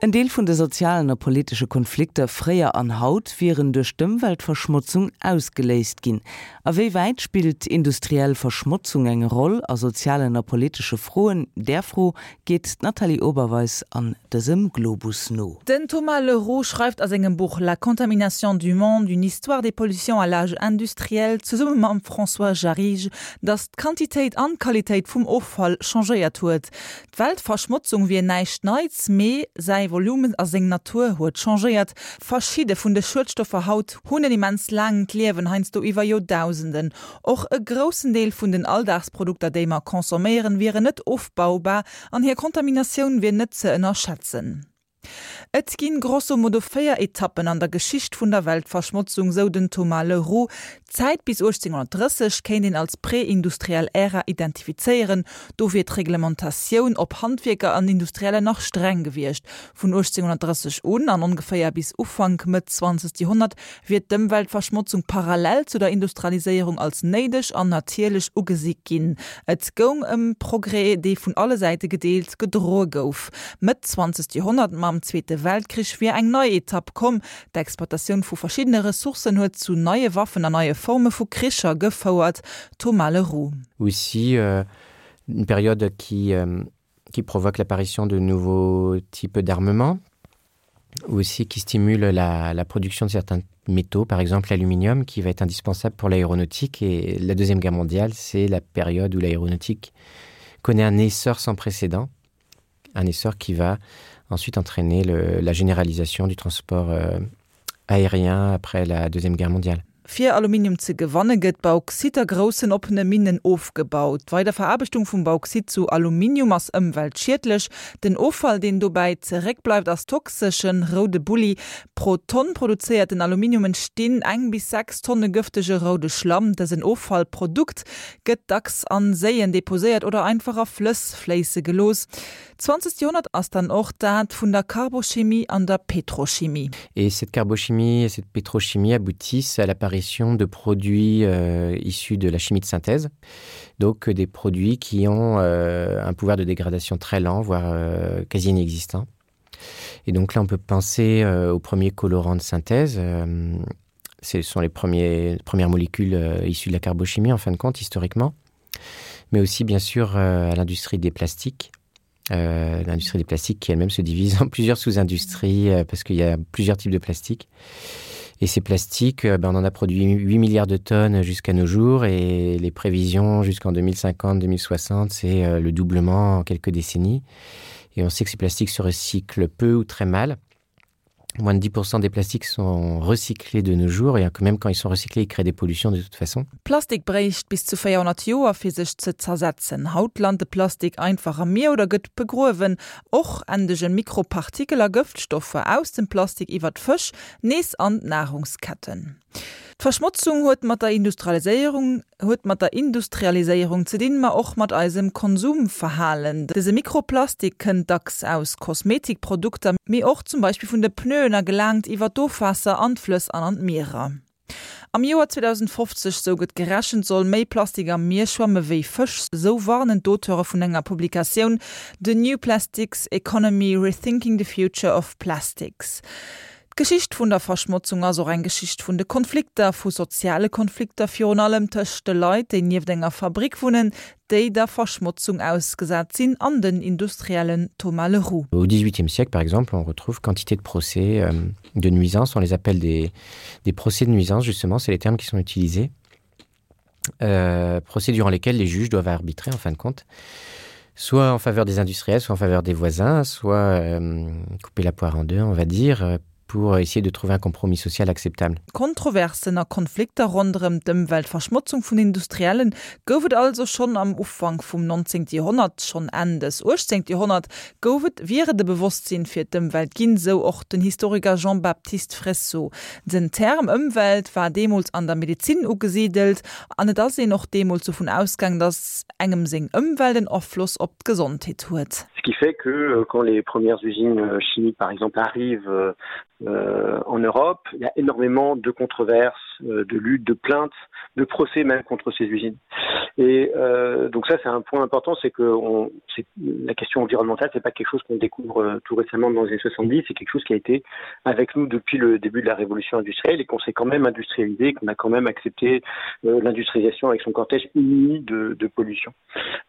En Deel vun de sozialen a politesche Konflikter fréier an haut wieren duerch d'Ëmweltverschmotzung ausgeléist ginn. A wéi wäit spillt industriell Verschmotzung eng Roll a sozialen a politesche Froen? Där Fro geet d'Nathalie Oberweis an dësem Globus no. Den Thomas Le Roux schreift a sengem Buch La contamination du monde, une histoire des pollutions à l'âge industriel zesumme mam François Jarrige, datt d'Quantitéit an d'Qualitéit vum Offall changéiert huet. D'Weltverschmotzung wier näischt Neits, mee säi Volumen a seng Natur huet changéiert. Verschidde vun de Schuedstoffer haut hunn en immens laangt Liewen, heiansdo iwwer Joerdausenden. Och e groussen Deel vun den Alldagsprodukter, déi mer consomméieren, wieren net ofbaubar an hir Kontaminatioun wier net ze ënnerschätzen. Et ginn grosso modo 4 Etappen an der Geschicht vun der Weltverschmotzung, sou den Thomas Le Roux. D'Zäit bis 1830 kéint een als prä-industriell Ära identifizéieren. Do wier d'Reglementatioun op Handwierker an Industriellen nach streng gewiescht. Vun 1830 un an ongeféier bis Ufank, Mëtt zwanzegt Joerhonnert wier d'Ëmweltverschmotzung parallel zu der Industrialiséierung als néideg an natierlech ugesi ginn. Et goung ëm Progrès, dee vun alle Säite gedeelt, gedroe gouf. Mëtt zwanzegt Joerhonnert, mam Zweete Weltkrich, wier eng nei Etapp komm. D'Exploitatioun vu verschiddene Ressourcen huet zu neie Waffen an neie Forme vu Kricher gefouert. Thomas Le Roux. Aussi une période qui qui provoque l'apparition de nouveaux types d'armements ou aussi qui stimule la, la production de certains métaux, par exemple l'aluminium qui va être indispensable pour l'aéronautique et la deuxième guerre mondiale, c'est la période où l'aéronautique connaît un essor sans précédent, un essor qui va ensuite entraîner le, la généralisation du transport euh, aérien après la deuxième guerre mondiale. Fir Aluminium ze gewanne gëtt Bauxit a groussen oppene Minnen ofgebaut. D'Weiderveraarbechtung vum Bauxit zu Aluminium ass ëmweltschiedlech. Den Offall, deen dobäi zeréckbleift, ass toxeschen roude Bulli. Pro Tonn produzéierten Aluminium entstinn eng bis 6 Tonne gëftege roude Schlamm. Dësen Offallprodukt gëtt dacks an Séien deposéiert oder einfach a Flëss fléisse gelooss. D'zwanzegt Joerhonnert ass dann och dat vun der Carbochimie an der Petrochimie. Et cette carbochimie et cette pétrochimie aboutissent à l'apparition de produits euh, issus de la chimie de synthèse, donc des produits qui ont euh, un pouvoir de dégradation très lent, voire euh, quasi inexistant. Et donc là on peut penser euh, aux premiers colorants de synthèse. Euh, ce sont les premiers, premières molécules euh, issues de la carbochimie en fin de compte historiquement, mais aussi bien sûr euh, à l'industrie des plastiques. Euh, l'industrie des plastiques qui elle-même se divise en plusieurs sous-industries euh, parce qu'il y a plusieurs types de plastiques. Et ces plastiques, euh, ben, on en a produit 8 milliards de tonnes jusqu'à nos jours et les prévisions jusqu'en 2050, 2060, c'est euh, le doublement en quelques décennies. Et on sait que ces plastiques se recyclent peu ou très mal. Moins de 10% des plastiques sont recyclés de nos jours et même quand ils sont recyclés, ils créent des pollutions de toute façon. Plastik bréicht bis zu 400 Joer fir sech ze zersetzen. Haut lant de Plastik einfach am Mier oder gëtt begruewen. Och endegen Mikropartikel a Gëftstoffer aus dem Plastik iwwer d'Fësch nees an d'Nahrungsketten. D'Verschmotzung huet mat der Industrialiséierung huet mat der Industrialiséierung ze dinn, ma och mat eisem Konsumverhalen. Dëse Mikroplastik kënnt dacks aus Kosmetikprodukter, mee och zum Beispill vun de Pneuen a gelaangt iwwer d'Ofwaasser an d'Flëss an an d'Mierer. Am Joer 2050, sou gëtt gerechent, soll méi Plastik am Mier schwamme wéi Fësch, sou warnen d'Auteure vun enger Publikatioun The New Plastics Economy, Rethinking the Future of Plastics. D'Geschicht vun der Verschmotzung ass och eng Geschicht vun de Konflikter, vu soziale Konflikter virun allem tëscht de Leit, déi nieft enger Fabrick wunnen, déi der Verschmotzung ausgesat sinn, an den Industriellen. Thomas Le Roux. Au XVIIIe siècle, par exemple, on retrouve quantité de procès euh, de nuisances. On les appelle des, des procès de nuisance, justement, c'est les termes qui sont utilisés. Euh, procès durant lesquels les juges doivent arbitrer, en fin de compte, soit en faveur des industriels, soit en faveur des voisins, soit euh, couper la poire en deux, on va dire, euh, pour essayer de trouver un compromis social acceptable. Kontroversen a Konflikter ronderëm d'Ëmweltverschmotzung vun Industriellen gouf et also schonn am Ufank vum 19. Joerhonnert. Schonn Enn des 18. Joerhonnert gouf et wier et e Bewosstsinn fir d'Ëmwelt ginn, sou och den Historiker Jean-Baptiste Fressoz. Den Term Ëmwelt war deemools an der Medezin ugesidelt an et ass een och deemools dovun ausgaang, datt engem seng Ëmwelt en Afloss op d'Gesondheet huet. Ce qui fait que euh, quand les premières usines euh, chimiques par exemple arrivent euh, euh, en Europe, il y a énormément de controverses, euh, de luttes, de plaintes, de procès même contre ces usines. Et euh, donc ça c'est un point important, c'est que on, la question environnementale c'est pas quelque chose qu'on découvre euh, tout récemment dans les années 70, c'est quelque chose qui a été avec nous depuis le début de la révolution industrielle et qu'on s'est quand même industrialisé, qu'on a quand même accepté euh, l'industrialisation avec son cortège uni de, de pollution.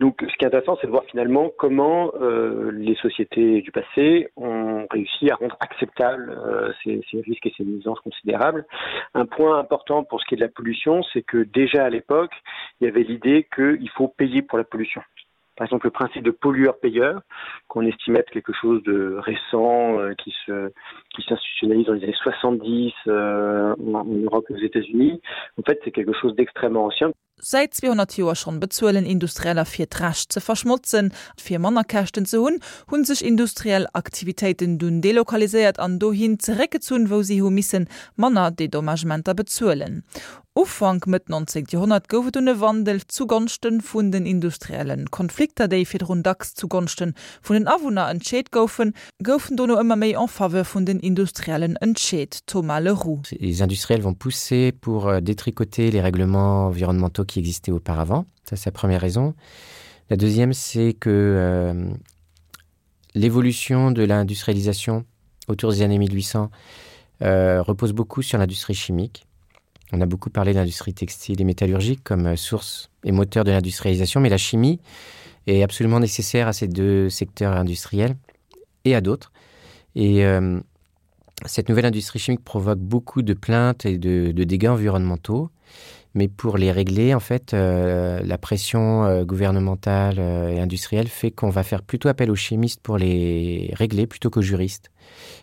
Donc ce qui est intéressant c'est de voir finalement comment euh, les sociétés du passé ont réussi à rendre acceptable euh, ces, ces risques et ces nuisances considérables. Un point important pour ce qui est de la pollution, c'est que déjà à l'époque, il y avait l'idée qu'il faut payer pour la pollution. Par exemple, le principe de pollueur-payeur, qu'on estimait être quelque chose de récent, euh, qui se, qui s'institutionnalise dans les années 70 euh, en, en Europe et aux États-Unis, en fait, c'est quelque chose d'extrêmement ancien. Säit 200 Joer schonn bezuelen Industrieller fir d'Recht ze verschmotzen. Fir manner Käschten ze hunn, hunn sech industriell Aktivitéiten dunn delokaliséiert an dohin zeréckgezunn, wou si hu missen manner Dedommagementer bezuelen. Ufank, Mëtt 19. Joerhonnert gouf et dunn e Wandel zugonschte vun den Industriellen. Konflikter, déi virdrun dacks zugonschte vun den Awunner entscheet goufen, goufen dono ëmmer méi en faveur vun den Industriellen entscheet. Thomas Le Roux. Les industriels vont pousser pour euh, détricoter les règlements environnementaux qui existaient auparavant. Ça c'est la première raison. La deuxième c'est que euh, l'évolution de l'industrialisation autour des années 1800 euh, repose beaucoup sur l'industrie chimique. On a beaucoup parlé d'industrie textile et métallurgique comme euh, source et moteur de l'industrialisation, mais la chimie est absolument nécessaire à ces deux secteurs industriels et à d'autres. Et euh, cette nouvelle industrie chimique provoque beaucoup de plaintes et de, de dégâts environnementaux. Mais pour les régler, en fait, euh, la pression euh, gouvernementale euh, et industrielle fait qu'on va faire plutôt appel aux chimistes pour les régler plutôt qu'aux juristes.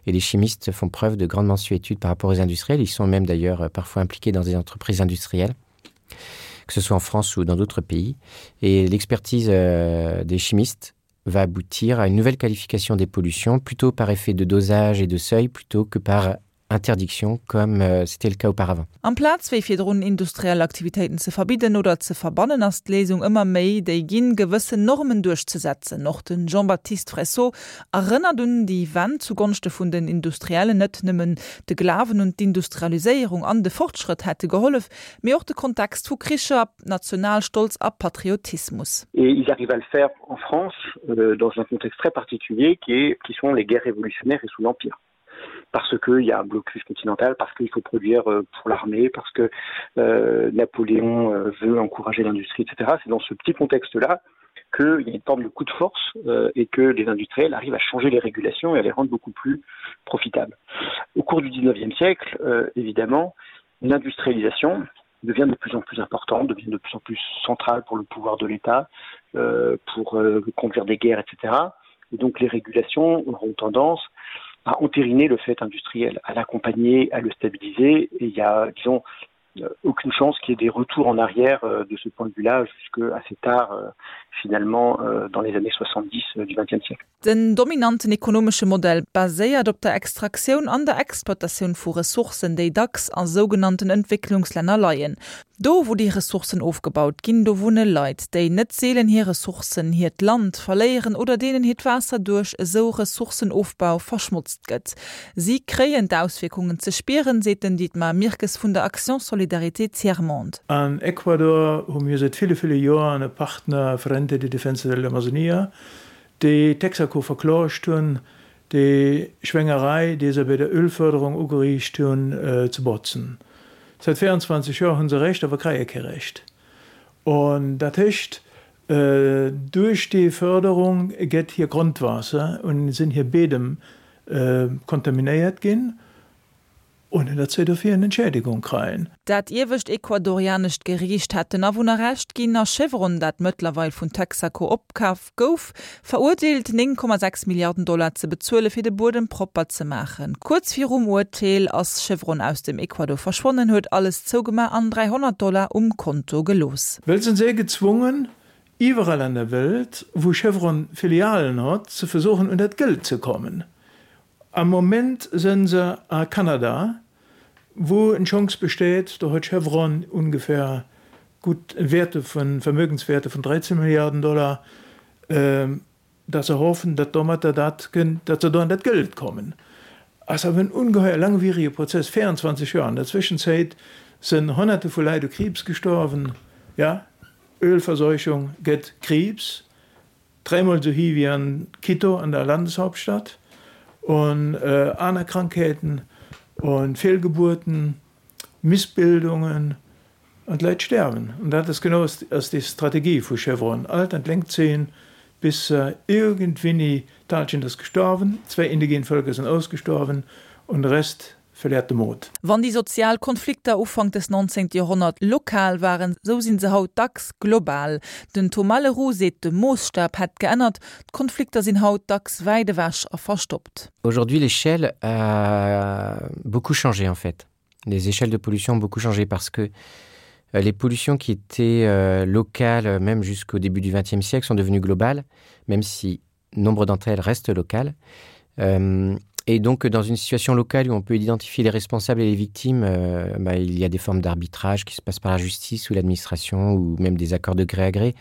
Et les chimistes font preuve de grande mensuétude par rapport aux industriels. Ils sont même d'ailleurs euh, parfois impliqués dans des entreprises industrielles, que ce soit en France ou dans d'autres pays. Et l'expertise euh, des chimistes va aboutir à une nouvelle qualification des pollutions, plutôt par effet de dosage et de seuil, plutôt que par interdiction comme euh, c'était le cas auparavant. Amplaz wéi virdrun industriell Aktivitéiten ze verbidden oder ze verbannen, ass d'Léisung ëmmer méi déi ginn, gewëssen Normen duerchzesetzen. Och de Jean-Baptiste Fressot erënnert un déi Wend zugonschte vun den Industriellen. Net nëmmen de Glawen un d'Industrialiséierung an de Fortschrëtt hätte gehollef, mee och de Kontext vu Kricher, Nationalstolz a Patriotismus. Et ils arrivent à le faire en France euh, dans un contexte très particulier qui, est, qui sont les guerres révolutionnaires et sous l'Empire parce qu'il y a un blocus continental, parce qu'il faut produire euh, pour l'armée, parce que euh, Napoléon euh, veut encourager l'industrie, etc. C'est dans ce petit contexte-là qu'il y a une forme de coup de force euh, et que les industriels arrivent à changer les régulations et à les rendre beaucoup plus profitables. Au cours du 19e siècle, euh, évidemment, l'industrialisation devient de plus en plus importante, devient de plus en plus centrale pour le pouvoir de l'État, euh, pour euh, conduire des guerres, etc. Et donc les régulations auront tendance à entériner le fait industriel, à l'accompagner, à le stabiliser. Et il y a, disons, euh, aucune chance qu'il y ait des retours en arrière euh, de ce point de vue-là jusque assez tard euh, finalement dans les années 70 du XXe siècle. Den dominanten ekonomesche Modell baséiert op der Extraktioun an der Exploitatioun vu Ressourcen, déi dacks a sougenannten Entwécklungslänner leien. Do, wou déi Ressourcen ofgebaut ginn, do wunne Leit, déi net seelen hir Ressourcen, hiert Land verléieren oder deenen hiert Waasser duerch esou Ressourcenofbau verschmotzt gëtt. Si kréien d'Auswierkungen ze spieren, seet den Dietmar Mirkes vun der Action Solidarité Tiers Monde. An Ecuador hu mir säit ville, ville Joren e Partner, Frente de Defensa de la Amazonía, déi Texaco verklagt hunn, déi Schwéngerei, déi se bei der Ölförderung ugeriicht hunn, ze botzen. Säit 24 Joer hu se Recht, awer kréie kee Recht. An dat heescht, duerch déi Förderung gëtt hir Grondwaasser un sinn hir Bedem kontaminéiert ginn. Ohne datt se dofir en Entschädigung kreien. Dat iewescht ecuadorianescht Geriicht hat den Awunner Recht ginn a Chevron, dat mëttlerweil vun Texaco opkaf gouf, verurteelt, 9,6 Milliarden Dollar ze bezuele fir de Buedem propper ze maachen. Kuerz virum Urteel ass Chevron aus dem Ecuador verschwonnen, huet alles zougemaach an 300 Dollar um Konto gelooss. Well sinn se gezwungen, iwwerall an der Welt, wou Chevron Filialen hott, ze versuchen, un dat Geld ze kommen. Am Moment sënn se a Kanada, wou en Chance besteet, do huet Chevron ungefähr gutt Wäerte vun, Vermögenswäerte vun 13 Milliarden Dollar, datt se hoffen, datt domatter dat kënnt, datt se do an dat Geld kommen. Ass awer en ungeheuer langwierige Prozess, 24 Joer. An der Zwëschenzäit sënn Honnerte vu Leit u Kriibs gestorwen. Ja, Ölverseuchung gëtt Kriibs, dräimol esou hi wéi an Quito, an der Landeshauptstadt, un aner Krankheeten, un Fehlgeburten, Missbildungen, an d'Leit sterwen. An dat ass genau ass déi Strategie vu Chevron, alt an d'Längt zéien, bis irgendwinni d'Hallschent ass gestorwen, zwei indigene Völker sind ausgestorben und de Rest verliert de Mut. Wann déi sozial Konflikter Ufank des 19. Joerhonnert lokal waren, sou sinn se haut dacks global. Den Thomas Leroux seet, de Moosstab hätt geännert, d'Konflikter sinn haut dacks wäit ewech a verstoppt. Aujourd'hui l'échelle a beaucoup changé en fait. Les échelles de pollution ont beaucoup changé parce que euh, les pollutions qui étaient euh, locales euh, même jusqu'au début du XXe siècle sont devenues globales, même si nombre d'entre elles restent locales. Euh, et donc dans une situation locale où on peut identifier les responsables et les victimes, euh, bah, il y a des formes d'arbitrage qui se passent par la justice ou l'administration ou même des accords de gré à gré.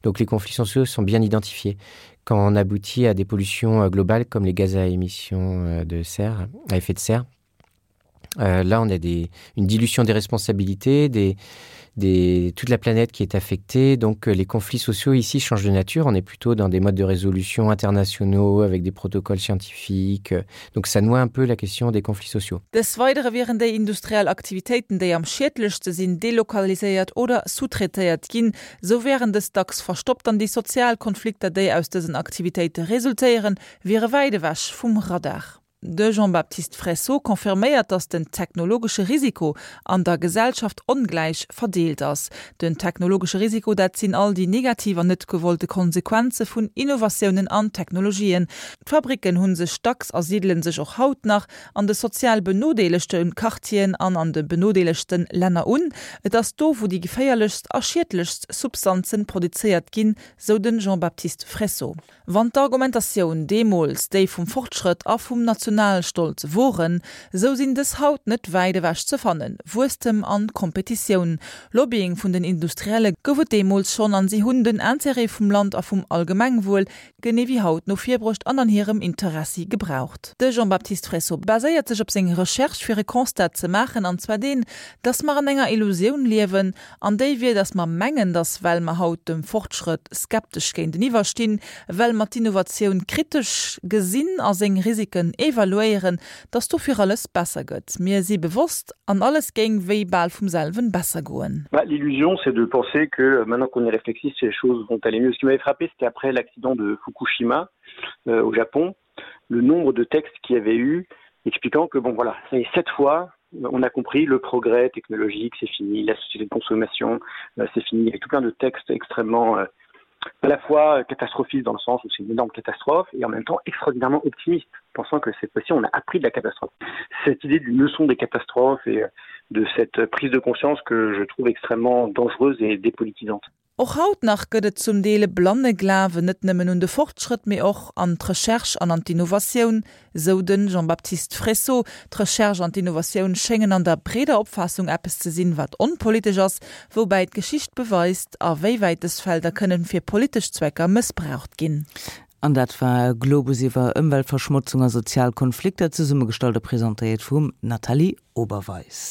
Donc les conflits sociaux sont bien identifiés. Quand on aboutit à des pollutions euh, globales comme les gaz à émissions euh, de serre à effet de serre, euh, là on a des, une dilution des responsabilités, des, des, toute la planète qui est affectée. Donc euh, les conflits sociaux ici changent de nature. On est plutôt dans des modes de résolution internationaux avec des protocoles scientifiques. Donc ça noie un peu la question des conflits sociaux. Des Weidere wieren déi industriell Aktivitéiten, déi am schiedlechste sinn, delokaliséiert oder sous-traitéiert ginn. Sou wären dës dacks verstoppt an déi sozial Konflikter, déi aus dësen Aktivitéite resultéieren, wiere wäit ewech vum Radar. De Jean-Baptiste Fressot confirméiert, datt den technologesche Risiko an der Gesellschaft ongläich verdeelt ass. Den technologesche Risiko, dat sinn all déi negativ an net gewollte Konsequenze vun Innovatiounen an Technologien. D'Fabricken hu sech dacks a sidele sech och haut nach an de sozial benodeelegte Quartieren an an de benodeelegste Länner un. Et ass do, wou déi geféierlechst a schiedlechst Substanze produzéiert ginn, sou de Jean-Baptiste Fressot. Wann d'Argumentatioun deemools déi vum Fortschrëtt a vum Nationalstolz woren, esou sinn dës haut net wäit ewech ze fannen. Wuesstem an Kompetitioun, Lobbying vun den Industrielle gouf et deemools schonn an si hunn den Intérêt vum Land a vum Allgemengwuel, genee wéi haut, no vir bruecht an an hirem Interessi gebraucht. De Jean-Baptiste Fressot baséiert sech op seng Recherche fir e Constat ze maachen, an zwar deen, datt mer an enger Illusioun liewen, An déi wier, datt mer mengen, datt well mer haut dem Fortschrëtt skeptesch géinteniwwer stinn, well mer d'Innovatioun kritesch gesinn a seng Risiken evaluéieren, datt dofir alles besser gëtt. Mir si bewosst an alles géing wéi bal vum selwen besser goen. L'illusion, c'est de penser que maintenant qu'on est réflexif, les choses vont aller mieux. Ce qui m'avait frappé, c'était après l'accident de Fukushima euh, au Japon, le nombre de textes qu'il y avait eu expliquant que bon voilà, ça y est, cette fois, on a compris le progrès technologique, c'est fini, la société de consommation, euh, c'est fini, il y avait tout plein de textes extrêmement euh, à la fois catastrophiste dans le sens où c'est une énorme catastrophe et en même temps extraordinairement optimiste, pensant que cette fois-ci on a appris de la catastrophe. Cette idée d'une leçon des catastrophes et euh, de cette prise de conscience que je trouve extrêmement dangereuse et dépolitisante. Och haut nach gëtt et zum Deel e blanne Glawen net nëmmen un de Fortschrëtt, mee och an d'Recherche an an d'Innovatioun, sou de Jean-Baptiste Fressot. D'Recherche an d'Innovatioun schéngen an der breeder Opfaassung eppes ze sinn, wat onpolitesch ass, woubäi d'Geschicht beweist, a wéi wäit dës Felder kënnen fir politesch Zwecker mëssbraucht ginn. An dat war Globus iwwer Ëmweltverschmotzung a sozial Konflikter, zesummegestallt a presentéiert vum Nathalie Oberweis.